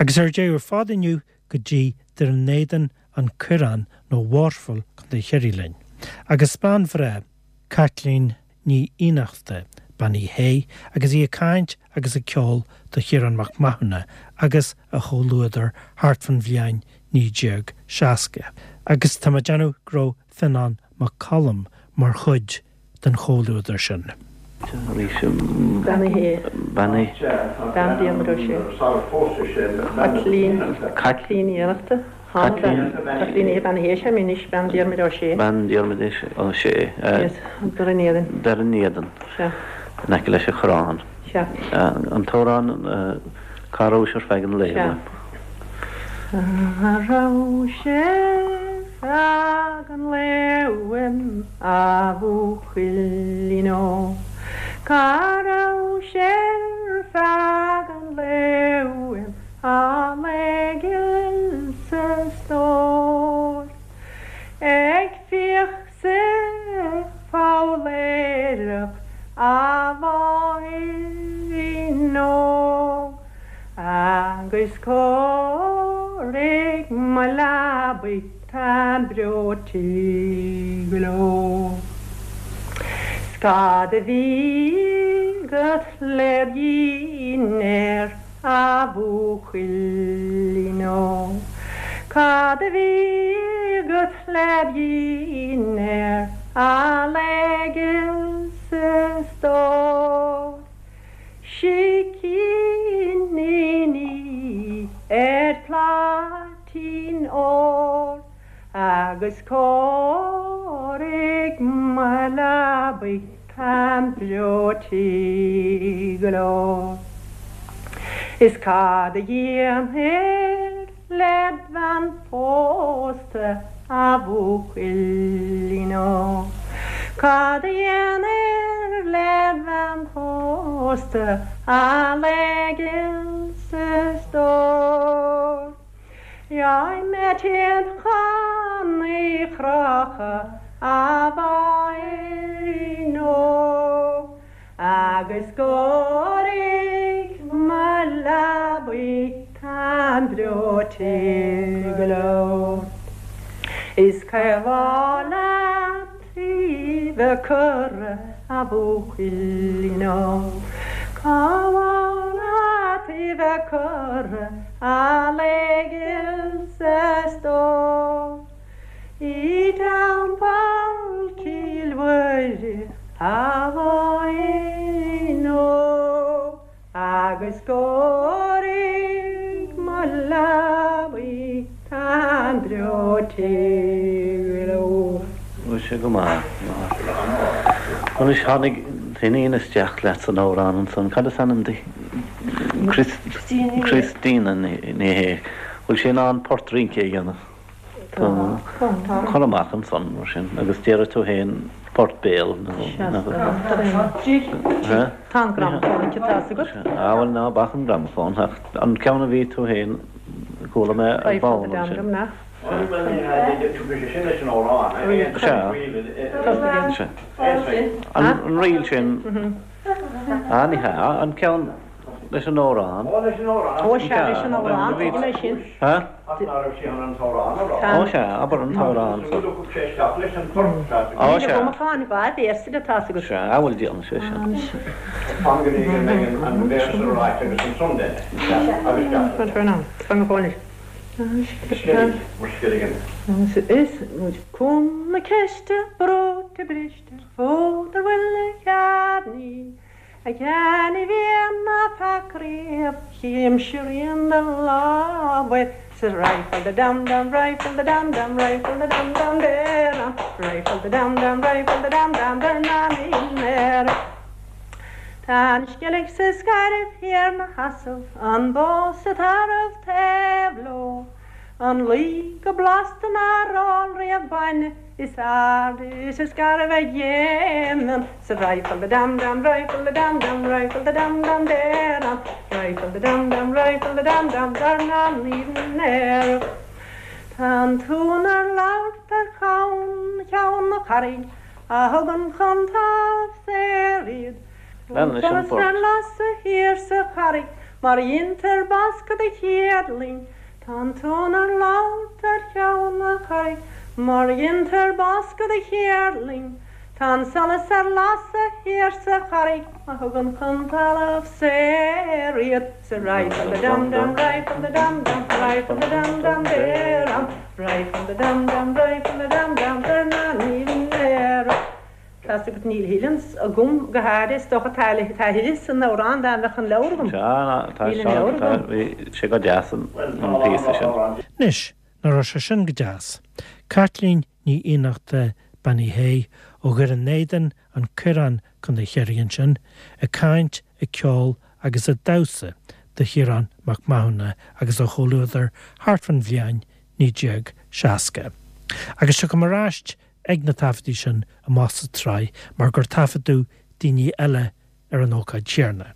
Agus ar deireadh ar fad inniu go dtí Doire an Éadain, An Coireán nó Waterville, Contae Chiarraí linn. Agus bean bhreá, Caitlín Ní Fhiannachta, Bean Uí Shé, agus í ag caint agus ag ceol do Chiarán Mac Mathúna agus a chomhluadar thart fán bhliain 1960. Agus tá mé ag déanamh go raibh Fionán Mac Coluim mar chuid den chomhluadar sin. Bean Uí Shé. Bean Uí. Bean Diarmuid Ó Sé. Caitlín. Caitlín Ní Fhiannachta. Caitlín. Caitlín Ní Bean Uí Shé, anois Bean Diarmuid Ó Sé. Bean Diarmuid Ó Sé. Yes, Doire an Éadain. Doire an Éadain. Sea. In aice leis an Choireán. Sea. An t-amhrán Cá rabhais ar feadh an lae? Sea. Cá rabhais ar feadh an lae uaim, a bhuachaillín óg? Cá rabhais ar feadh an lae uaim, a lae ghil 's a stór? Ag fiach 's ag foghlaeireacht, a mháithrín óg, Agus cóirigh mo leabaidh táim breoite go leor. 'S cad a bhí agat led dhinnéar, a bhuachaillín óg? Cad a bhí agat led dhinnéar, a lae ghil 's a stór? Sicíní ar phláitín óir agus cóirigh mo leabaidh táim breoite go leor. Is cad a dhéanfair led bhean phósta, a bhuachaillín óg? Cad a dhéanfair led bhean phósta, a lae ghil 's a stór? Gheobhaidh mé téad chun í chrochadh, a mháithrín óg. Agus cóirigh mo leabaidh táim breoite go leor. Is cá mhaith leat í bheith curtha, a bhuachaillín óg? Cá mhaith leat í bheith curtha, a lae ghil 's a stór? I dTeampall Chill Mhuire, a mháithrín óg, agus cóirigh mo leabaidh táim breoite go leor. Bhí sé go maith. Anois tháinig iníon isteach leat san amhrán ansan. Cad is ainm di? Christina Ní Shé. Bhfuil sí in ann port rince a dhéanamh? Tá. Cuir amach ansan mar sin agus déarfaidh tú féin port béil nó. Tá an gramafón aici, tá fhios agat. Á bhuel ná bac an gramafón ach an ceann a bhí tú féin chuala mé ar ball ansin. Sea. An ríl sin. Á ní hea, an ceann. Leis an amhrán. Ó, leis an amhrán. Ó, sea, leis an amhrán, tuigim é sin. Ha? Ach ná raibh sí chun an t-amhrán a rá. Ó, sea, abair an t-amhrán so. Thug sé isteach leis an port. Ó, sea. Níl agam ach an dá véarsa de, tá's agat. Sea, a bhfuil déanfaidh sé sin. Fan go dtí go mbeidh an véarsa ráite agus ansan den. Agus Fan go fóill. Is muid cúng na ceiste, breoite briste, fód ar bhuille chearnaí. A Sheáin a bhíonn ná feac riamh chímse rian do lámhair sa rifle da dam dam rifle da dam dam rifle da dam dam deram rifle da dam dam rifle da dam dam dar na mínéar. Tá an sceilg sa scairbh thiar 'na sheasamh an bó sa tarbh taobh leo an lao go blasta nár ól riamh bainne Is ard is is garbh a dhéanann sa rifle da dam dam rifle da dam dam rifle da dam dam deram rifle da dam dam rifle da dam dam dar na n-aer. Tá an t-uan ar labhairt ar cheann cheann na carraig a thugann chun talamh saor iad. Lean leis an Solas bport. ar lasadh thiar sa charraig. Mar a dheintear bascadh do chéadling, Tá an tonn ar labhairt ar cheann na carraige, Mar a dheintear bascadh do chéadling, Tá an solas ar lasadh thiar sa charraig A thugann chun talamh saor iad Sa right from the dum dum right from the dum dum right from the dum dum there am right from the dum dum right from the dum dum there na ní there Tá 's agat níl a thuilleadh agam go háirithe is dócha tá a thuilleadh san amhrán dá mbeadh an leabhar agam. Sea, tá Níl an leabhar agam. Bhí sé go deas an píosa sin. Anois, nach raibh sé sin go deas? Caitlín Ní Fhiannachta, Bean Uí Shé, ó Dhoire an Éadain, An Coireán, Co. Chiarraí ansin, ag caint, ag ceol agus ag damhsa do Chiarán Mac Mathúna agus a chomhluadar thart fán bhliain 1960. Agus tiocfaidh mé ar ais ag na taifeadtaí sin amach sa tsraith mar gur taifeadadh daoine eile ar an ócáid chéanna.